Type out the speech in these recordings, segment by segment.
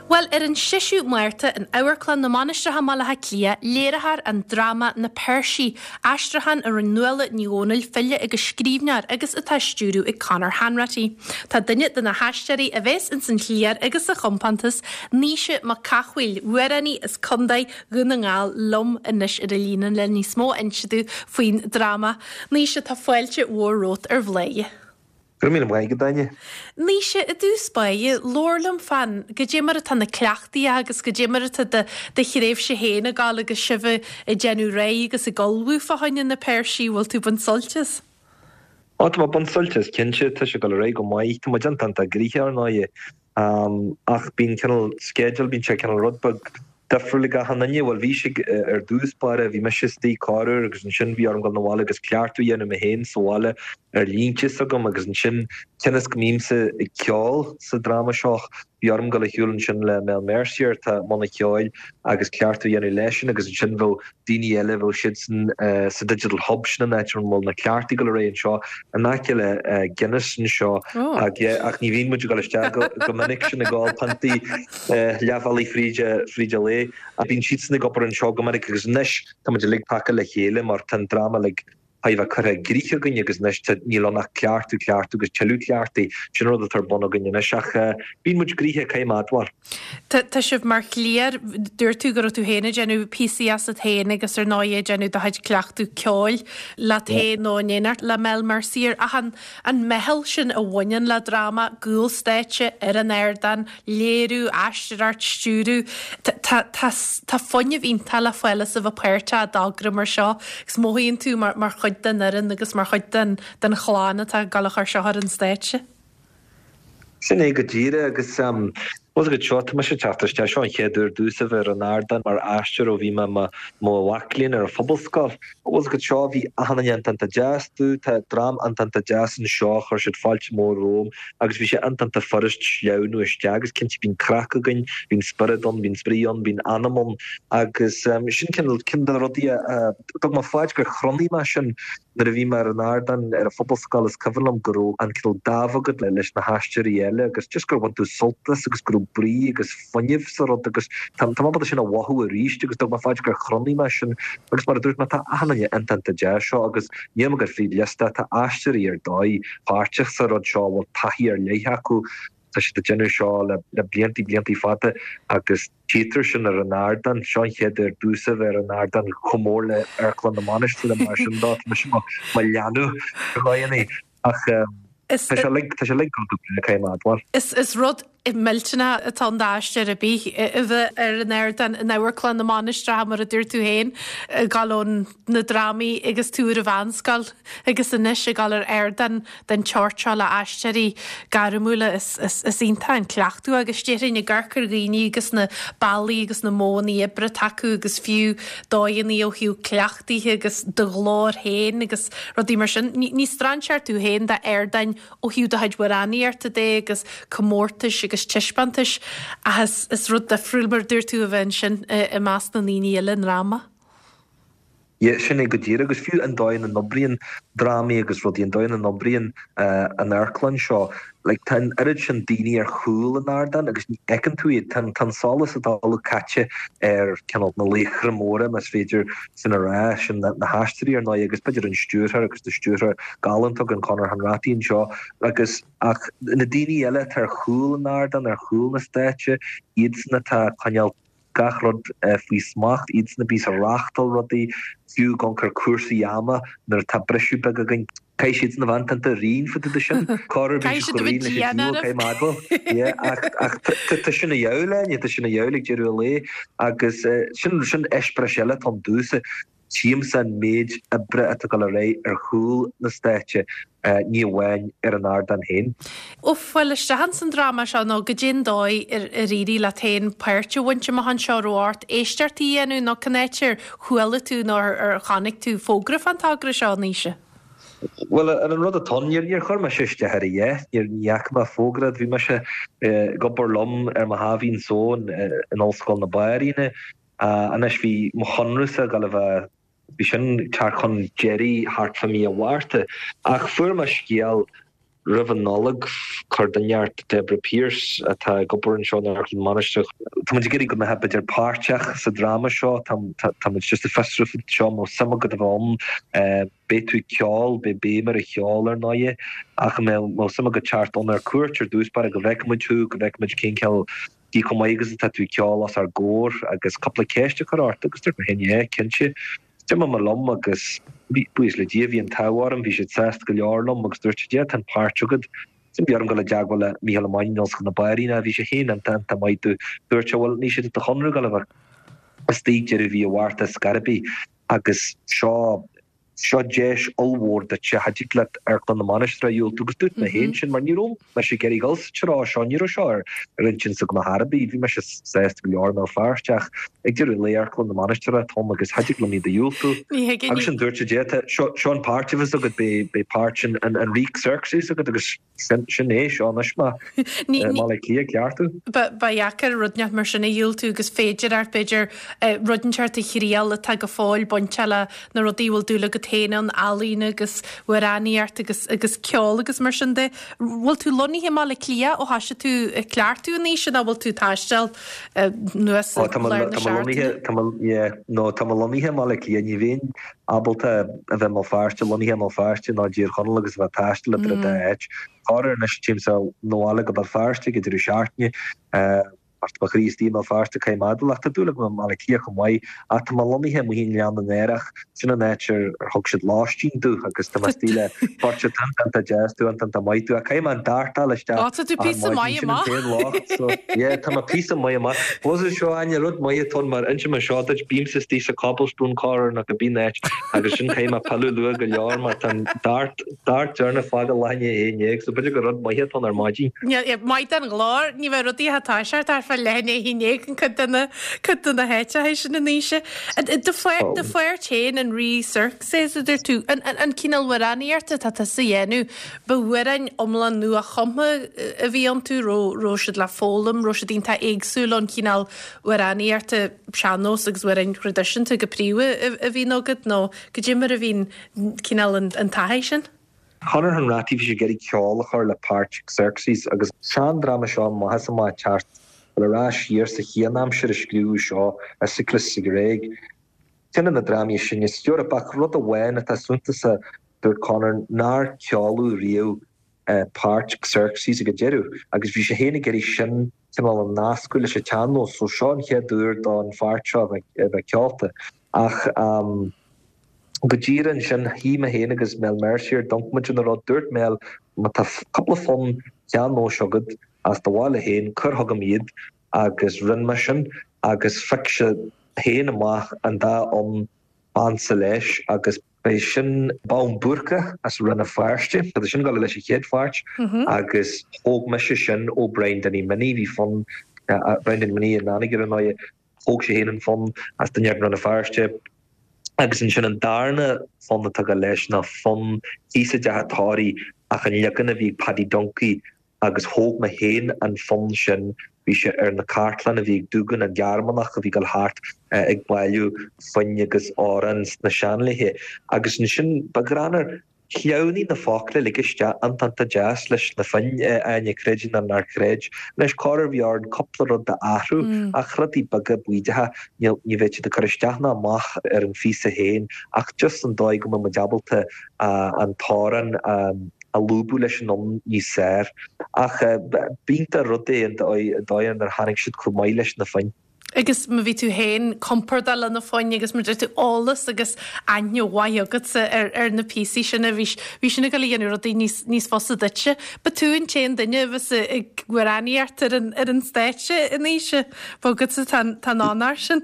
Bhuel, ar an 6ú Márta in Amharclann na Mainistreach i mBaile Átha Cliath, léireofar an dráma Na Peirsigh, aistriúchán a rinne Nuala Ní Dhomhnaill, file agus scríbhneoir, agus atá á stiúradh ag Conor Hanratty. Tá duine de na haisteoirí a bheas ins an chliar agus sa chompántas, Naoise Mac Cathmhaoil, amhránaí as Contae Dhún na nGall, liom anois ar an líne le níos mó a inse domh faoin dráma. Naoise, tá fáilte mhór romhat ar Bhláth. Go raibh míle maith agat, Áine. Naoise, i dtús báire, labhair liom fán goidé mar atá na cleachtaí agus goidé mar atá do do thréimhse féin ag gabháil agus sibh ag déanamh réidh agus ag ullmhú fá choinne na Peirsigh, bhfuil tú ag baint sult as? Ó, tá mé ag baint sult as, cinnte. Tá sé ag dul ar aghaidh go maith. Tá muid iontach gnoitheach, ar ndóighe. Ach bíonn cineál sceideal, bíonn sé cineál rud beag difriúil ag achan duine. Bhuel, bhí sé ar dtús báire, bhí mise istigh corruair agus ansin bhí orm dul 'na bhaile agus cleachtadh a dhéanamh mé féin sa bhaile ar línte s'agam agus ansin cionn is go mbímse ag ceol sa dráma seo, bhí orm dul ar shiúl ansin le Mel Mercier atá i mbun an cheoil agus cleachtadh a dhéanamh leisean agus ansin bheadh daoine eile, bheadh siadsan sa Digital Hub, sin an áit a bhfuil na cleachtaí ag dul ar aghaidh anseo, in aice le Guinness anseo, ach yeah, ach ní bhíonn muid ag dul isteach go minic sin ag ól piontaí leathbhealaigh fríd fríd an lae. Bíonn siadsan ag obair anseo go minic agus anois tá muid uilig paca le chéile mar tá an dráma uilig thar a bheith curtha i gcrích againn agus anois tá, níl ann ach cleachtadh, cleachtadh agus tuilleadh cleachtaí. Sin an rud atá ar bun againn anois ach bíonn muid gnoitheach, caithfidh mé a admháil. Tá, tá sibh mar chliar, dúirt tú go raibh tú féin ag déanamh píosaí asat féin agus ar ndóigh ag déanamh do chuid cleachtadh ceoil leat féin nó in éineacht le Mel Mercier ach an, an meitheal sin a bhaineann le dráma, cúl stáitse, ar an ardán, léiriú, aisteoireacht, stiúradh. Tá, tá, tá fuinneamh iontach le fáil as a bheith páirteach i dtogra mar seo agus mothaíonn tú mar, mar chuid den fhoireann agus mar chuid den, den chlann atá ag dul a chur seo ar an stáitse. Sin é go díreach agus bhfuil a fhios agat seo, tá mise ag teacht isteach, seo an chéad uair domhsa a bheith ar an ardán mar aisteoir ó bhí mé i mo mhac léinn ar an phobalscoil. Bhfuil a fhios agat seo, bhí achan duine iontach deas domh, tá dream iontach deas anseo, chuir siad fáilte mór romham agus bhí sé iontach furast sleamhnú isteach agus cinnte bíonn craic againn, bíonn spiorad ann, bíonn spraoi ann, bíonn anam ann agus sin cineál, ceann de na rudaí a dtug mé faoi gur chronaigh mé sin Nuair a bhí mé ar an ardán ar an phobalscoil is cuimhin liom go raibh an cineál dáimh agat leis na haisteoirí eile agus just gur bhain tú sult as agus go raibh brí agus fuinneamh sa rud agus tá mé ábalta sin a mhothú arís agus dtug mé faoi gur chronaigh mé sin agus mar a dúirt mé tá achan duine iontach deas seo agus níl mé ag dul fríd liosta tá aisteoirí ar dóigh páirteach sa rud seo a bhfuil taithí ar leith acu Tá siad ag déanamh seo le bliantaí, bliantaí fada agus tchítear sin ar an ardán. Seo an chéad uair domhsa bheith ar an ardán chomh mór le Amharclann na Mainistreach mar sin dó. Tá mise mo leanbh ar dhóigheanna ach tá sé uilig, tá sé uilig go breá, caithfidh mé a admháil. Is rud millteanach atá ann d'aisteoir ar bith a bheith ar an ardán in Amharclann na Mainistreach mar a dúirt tú féin, ag dul ón na drámaí agus tú ar an mheánscoil agus anois ag dul ar ardán den tseort seo le aisteoirí gairmiúla. Is iontach an cleachtadh agus déarfainn ag amharc ar dhaoine agus na bealaí agus na modhanna oibre atá acu agus fiú dóigheanna ó thaobh cleachtaithe agus do ghlór féin agus rudaí mar sin. Ní strainséir tú féin d'ardáin ó thaobh do chuid amhránaíochta de agus comórtais agus taispeántais ach is rud difriúil mar a dúirt tú a bheith ansin i measc na ndaoine eile i ndráma. Yeah, sin é go díreach. Agus fiú an dóigh ina n-oibríonn drámaí agus rudaí, an dóigh ina n-oibríonn an amharclann seo, like tá an oiread sin daoine ar chúl an ardáin agus ní fheiceann tú iad. Tá an solas atá uilig caite ar cineál na laochra móra, más féidir sin a rá, sin na haisteoirí ar ndóigh agus b'fhéidir an stiúrthóir agus tá stiúrthóir galánta againn, Conor Hanratty anseo agus ach na daoine eile atá ar chúl an ardáin, ar chúl na stáitse, iadsan atá ag coinneáil gach rud faoi smacht, iadsan a bíos ag reáchtáil rudaí, fiú ag amharc ar cúrsaí ama nuair atá briseadh beag againn. Caithfidh siadsan a bheith iontach righin fá dtaobh de sin. Corruair bíonn siad chomh righin leis an diabhal, caithfidh mé a admháil. Yeah, ach, ach tá sin a dhíobháil, Áine, tá sin a dhíobháil ag deireadh an lae agus sin, sin eispéireas eile atá ann domhsa. Tchímse an méid oibre atá ag dul ar aghaidh ar chúl na stáitse, ní amháin ar an ardán féin. Ó fáil isteach ins an dráma seo nó goidé an dóigh ar éirigh leat féin páirt a bhaint amach anseo, raibh ort éisteachtaí a dhéanamh nó cén áit ar chuala tú nó ar chonaic tú fógra fán togra seo, a Naoise? Bhuel, an rud atá ann, níor chuir mise isteach ar a dhath, ní fhaca mé fógra, bhí mise ag obair liom ar mo sháimhín só in Ollscoil na Banríona, Anois bhí mo chonradhsa ag dul a bheith, bhí sin ag teacht chun deiridh thart fá mí an Mhárta. Ach fuair mé scéal. Roimh an Nollaig, chuir duine inteacht, Deborah Pearse, atá ag obair anseo in Amharclann na Mainistreach, Tá muid ag iarraidh go mbeifeá b'fhéidir páirteach sa dráma seo, tá tá muid just ag fiosrú faoi seo, an mbeadh suim agat a bheith ann, beidh tú ag ceol, beidh béim ar an cheol ar ndóighe, ach an mbeadh suim agat teacht ann ar cuairt ar dtús báire go bhfeicfidh muid thú, go bhfeicfidh muid cén cineál cé chomh maith agus atá tú ag ceol os ár gcomhair agus cúpla ceist a chur ort agus dúirt mé féin yeah, cinnte. D'imigh mé liom agus, buíochas le Dia, bhí an t-ádh orm, bhí siad sásta go leor liom agus dúirt siad, yeah, tá an páirt agat. Ansin bhí orm dul i dteagmháil le Mícheál Ó Mainnín in Ollscoil na Banríona, bhí sé féin iontach, iontach maith domh. Dúirt sé, bhuel, níl sé de do chonradh dul a bheith istigh deireadh mhí an Mhárta ar scor ar bith agus seo, seo deis ollmhór duitse, cha dtig leat Amharclann na Mainistreach a dhiúltú agus dúirt mé féin sin mar ní raibh mise ag iarraidh dul sa treo seo, ní raibh seo ar ar intinn s'agam ar chor ar bith, bhí mise sásta go leor i mBéal Feirste ach ag deireadh an lae Amharclann na Mainistreach atá ann agus cha dtig liom iad a dhiúltú. Ní thuigim. Agus ansin dúirt siad yeah tá seo seo an páirt a bheas agat beidh beidh páirt an an an Rí Xerxes agat agus Sin é, seo anois mé i mBaile Átha Cliath ag cleachtadh. Ba dheacair rud inteacht mar sin a dhiúltú agus féidir ort, b'fhéidir, rud inteacht a thriail atá go fóill bainteach le na rudaí a bhfuil dúil agat féin ann, ealaín agus amhránaíocht agus agus ceol agus mar sin de. Bhfuil tú lonnaithe i mBaile Átha Cliath ó thoisigh tú ag cleachtadh anois nó bhfuil tú ag taisteal anuas i lár na Tá mé lonnaithe, tá mé, yeah, no, tá mé lonnaithe i mBaile Átha Cliath, ní bheinn ábalta a bheith i mBéal Feirste, lonnaithe i mBéal Feirste nó i dTír Chonaill agus a bheith ag taisteal idir an dá áit. Corruair anois téimse 'na bhaile go Béal Feirste ag an deireadh seachtaine mar tá mo chroí istigh i mBéal Feirste caithfidh mé a admháil ach tá dúil agam i mBaile Átha Cliath chomh maith ach tá mé lonnaithe amuigh i nGleann na nAerach, sin an áit ar thug siad lóistín domh agus tá mé istigh le beirt atá iontach deas domh, iontach maith domh ach caithfidh mé an DART a fháil isteach Ó tá tú píosa maith amach. Sin an t-aon locht so yeah tá mé píosa maith amach. Bhuel seo Áine, rud maith atá ann mar inseoidh mé seo duit, bímse istigh sa Cobblestone corruair nó cibé áit agus sin caithfidh mé pilleadh luath go leor mar tá an DART, DART deireanach ag fágáil leath i ndiaidh a 11 so b'fhéidir gur rud maith atá ann ar maidin. Maith don ghlór, ní bheidh rudaí ag toiseacht ach fá leath i ndiaidh a 11 in cuid de na, cuid de na háiteacha sin anois. Do pháirt féin, an Rí Xerxes a dúirt tú, an, an cineál amhránaíochta atá tusa a dhéanamh, Ba amhráin iomlán nua-chumtha a bhí iontu, raibh siad le foghlaim, raibh siad iontach éagsúil ón chineál amhránaíochta sean-nós agus amhráin thraidisiúnta go príomha a bhíonn agat, nó goidé mar a bhíonn cineál an taithí sin? Conor Hanratty, bhí sé ag iarraidh ceol a chur le páirt Xerxes agus sean-dráma seo amach is amach ag teacht ar ais siar sa chianaimsir a scríobhadh seo, Aeschylus sa Ghréig. Ceann de na drámaí is sine san Eoraip ach rud amháin atá suntasach Dúirt Conor nár ceoladh riamh páirt Xerxes ag an deireadh agus bhí sé féin ag iarraidh sin cineál a nascadh leis an tsean-nós so seo an chéad uair don pháirt seo a bheith ceolta. Ach go díreach ansin shuigh mé féin agus Mel Mercier, d'amharc muid ar an rud, dúirt Mel má tá cúpla fonn sean-nóis agat as do bhaile féin, cuir chugam iad agus rinne mé sin agus phioc sé féin amach an dá fhonn b'ansa leis agus b'é sin Bonn Búrca as Rann na Feirste, tá sin ag dul leis an chéad pháirt agus thóg mise sin ó Brian Danny Minnie, bhí fonn Brian Danny Minnie in Anagaire ar ndóighe, thóg sé féin an fonn as duine i Rann na Feirste agus ansin an darna fonn atá ag dul leis ná fonn thíos i dTeach an Tórraimh ach an leagan a bhí ag Paddy Duncie agus thóg mé féin an fonn sin, bhí sé ar na cartlanna a bhí ag Duggan, an Gearmánach a bhí ag dul thart ag bailiú foinn agus amhráin sna seanlaethe. Agus ansin, ba ghreannmhar, shleamhnaigh na focla uilig isteach iontach iontach deas leis na foinn, Áine, creid é nó ná creid. Anois, corruair bhí orainn cúpla rud a athrú, ach rudaí beaga baoideacha, ní bheadh siad ag cur isteach ná amach ar an phíosa féin, ach just an dóigh go mbeadh muid ábalta an t-amhrán a a lúbadh leis an fhonn níos fearr. Ach b'iontach rud é an dóigh ar tháinig siad chomh maith leis na foinn. Agus má bhí tú féin compordach le na foinn agus mar deir tú eolas agus aithne mhaith agatsa ar ar na píosaí sin a bhí bhí sin ag dul a dhéanamh rudaí níos níos fusa duitse. Ba tú an t-aon duine a bheas ag amhránaíocht ar an ar an stáitse anois, ba agatsa tá an tá an onóir sin.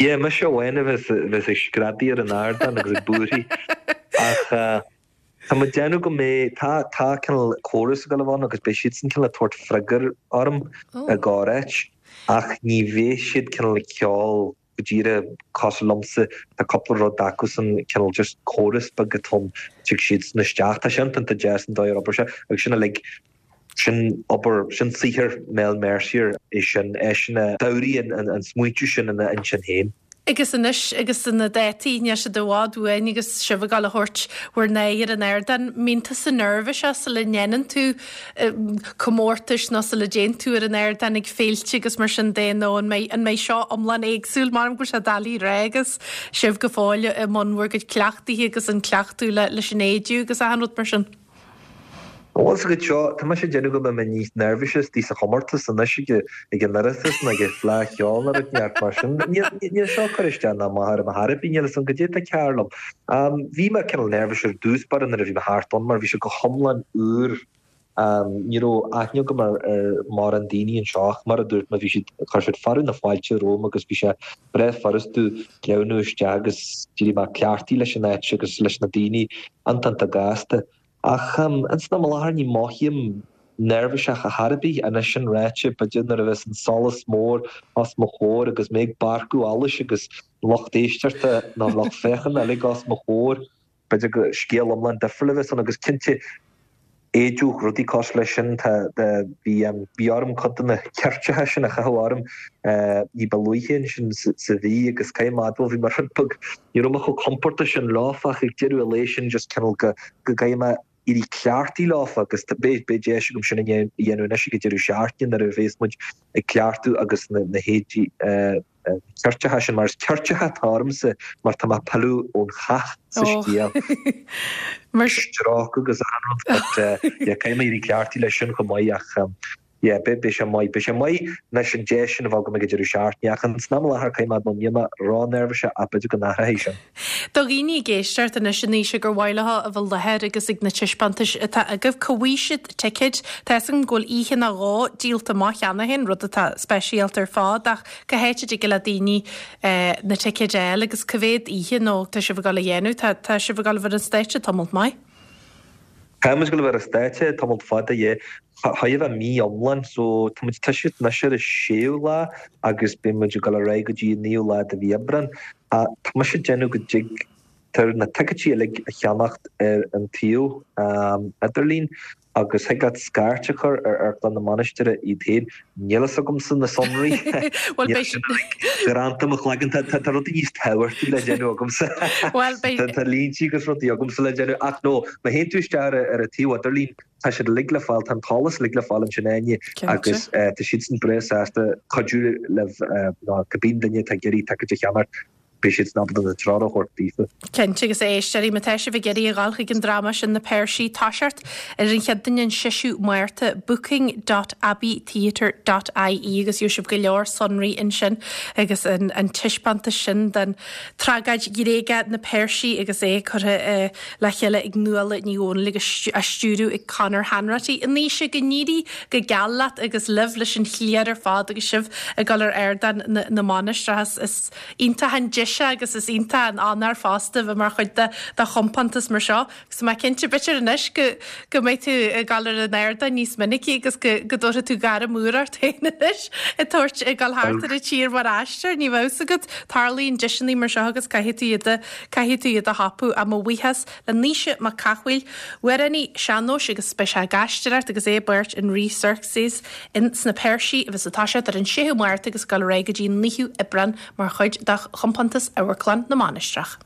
Yeah, mise amháin a bheas a bheas ag screadaí ar an ardán agus ag búirthigh ach Tá mé ag déanamh go mbeidh, tá, tá cineál córas ag dul a bheith ann agus beidh siadsan cineál ag tabhairt freagair orm i gcorr-áit ach ní bheidh siad cineál ag ceol go díreach cosúil liomsa, tá cúpla rud acusan cineál just córas beag atá ann, tig siadsan isteach, tá sé iontach deas an dóigh ar obair sé agus sin uilig, sin obair, sin saothar Mel Mercier é sin, eisean a d'fhabhraigh an smaointiú sin ina intinn féin. Agus anois agus na dátaí, níl siad i bhfad uainn agus sibh ag dul a thabhairt bhur n-aghaidh ar an ardán, mbíonn tusa neirbhíseach sula ndéanann tú comórtais nó sula dtéann tú ar an ardán ag féilte agus mar sin de nó an mbeidh, an mbeidh seo iomlán éagsúil? M'anam go bhfuil sé doiligh a rá agus sibh go fóill i mbun bhur gcuid cleachtaithe agus an cleachtadh leis an éidiú agus achan rud mar sin. Bhfuil a fhios agat seo, tá mise ag déanamh go mbeidh mé níos neirbhísí istigh sa chomórtas anois ag an Oireachtas ná ag an Fleadh Cheoil nó rud inteacht mar sin. Níl seo ag cur isteach ná amach orm ar chor ar bith, níl a fhios agam goidé atá cearr liom. Bhí mé cineál neirbhíseach ar dtús báire nuair a bhí mé thart ann mar bhí sé go hiomlán úr. Ní raibh aithne agam ar mórán daoine anseo ach mar a dúirt mé bhí siad, chuir siad fearadh na fáilte romham agus bhí sé breá furasta sleamhnú isteach agus d'éirigh mé cleachtaithe leis an áit agus leis na daoine iontach gasta. Ach ins an am i láthair ní mothaím neirbhíseach ar chor ar bith. Anois sin ráite, b'fhéidir nuair a bheas an solas mór os mo chomhair agus mé ag bárcadh allais agus lucht éisteachta nó lucht féachana uilig os mo chomhair, b'fhéidir go scéal iomlán difriúil a bheas ann agus cinnte éideadh, rudaí cosúil leis sin, tá, bhí, bhí orm cuid de na ceirteacha sin a chaitheamh orm ní ba luaithe ansin sa mhí agus caithfidh mé a admháil bhí mé rud beag, ní raibh mé chomh compordach sin leofa ach ag deireadh an lae sin just cineál go, go gcaithfidh mé éirí cleachtaithe leofa agus beidh, beidh deis agam sin a dhéanamh anois ag an deireadh seachtaine nuair a bhéas muid ag cleachtadh agus na, na héadaí, na ceirteacha sin, mar is ceirteacha atá ormsa mar tá mé ag pilleadh ón chath sa scéal. Stróicthe agus achan rud but yeah caithfidh mé éirí cleachtaithe leis sin chomh maith ach yeah beidh beidh sé maith. Beidh sé maith anois an deis sin a bheith agam ag an deireadh seachtaine ach ins an am i láthair caithfidh mé admháil níl mé ró-neirbhíseach ach b'fhéidir go n-athróidh sin. Do dhaoine ag éisteacht anois a Naoise gur mhaith leo a bheith i láthair agus ag na taispeántais atá agaibh, cá bhfaighidh siad ticéid? Tá fhios agam go bhfuil oíche nó dhó díolta amach cheana féin, rud atá speisialta ar fad, ach cá háit a dtig le daoine na ticéid a fháil agus cá mhéad oíche nó tá sibh ag dul a dhéanamh? Tá tá sibh ag dul a bheith ar an stáitse tamalt maith. Tá muid ag dul a bheith ar an stáitse tamalt fada, yeah. Chóir a bheith mí iomlán, so tá muid ag toiseacht anois ar an séú lá agus beidh muid ag dul ar aghaidh go dtí an naoú lá de mhí Aibreán. Tá mise ag déanamh go dtigtear na ticéidí uilig a cheannacht ar an tsuíomh idirlín agus thig leat scairt a chur ar Amharclann na Mainistire iad féin. Níl fhios agamsa na sonraí. Bhuel, beidh sin uilig greanta i mo chloigeann. Tá rudaí níos tábhachtaí le déanamh agamsa. Bhuel, beidh. Tá líntí agus rudaí agamsa le déanamh. Ach no, má théann tú isteach ar an tsuíomh idirlín, tá siad uilig le fáil, tá an t-eolas uilig le fáil ansin Áine agus tá siadsan breá sásta cuidiú libh nó cibé duine atá ag iarraidh ticéid a cheannacht, beidh siadsan ábalta na treoir a thabhairt daofa. Cinnte, agus a éisteoirí, má tá sibh ag iarraidh a dhul chuig an dráma sin Na Peirsigh, toiseacht ar an Chéadaoin an 6ú Márta, booking dot abbeytheatre dot ie agus gheobhaidh sibh go leor sonraí ansin agus an an taispeántas sin den tragóid Ghréagach Na Peirsigh agus é curtha le chéile ag Nuala Ní Dhomhnaill agus á stiúradh ag Conor Hanratty. A Naoise, go n-éirí go geal leat agus libh leis an chliar ar fad agus sibh ag dul ar ardán na Mainistreach. Is iontach an deis é agus is iontach an onóir fosta a bheith mar chuid de chompántas mar seo. Agus tá mé cinnte, b'fhéidir anois go go mbeidh tú ag dul ar an ardán níos minicí agus go go dtabharfaidh tú gairm úr ort féin anois ag tabhairt ag dul thart ar an tír mar aisteoir. Ní bheadh fhios agat, tarlaíonn deiseanna mar seo agus caithfidh tú iad a caithfidh tú iad a thapú. Ach mo bhuíochas le Naoise Mac Cathmhaoil, amhránaí sean-nóis agus beidh sé ag aisteoireacht agus é i bpáirt an Rí Xerxes in sna Peirsigh a bheas ag toiseacht ar an 6ú Márta agus ag dul ar aghaidh go dtí an 9ú Aibreán mar chuid de chompántas Amharclann na Mainistreach.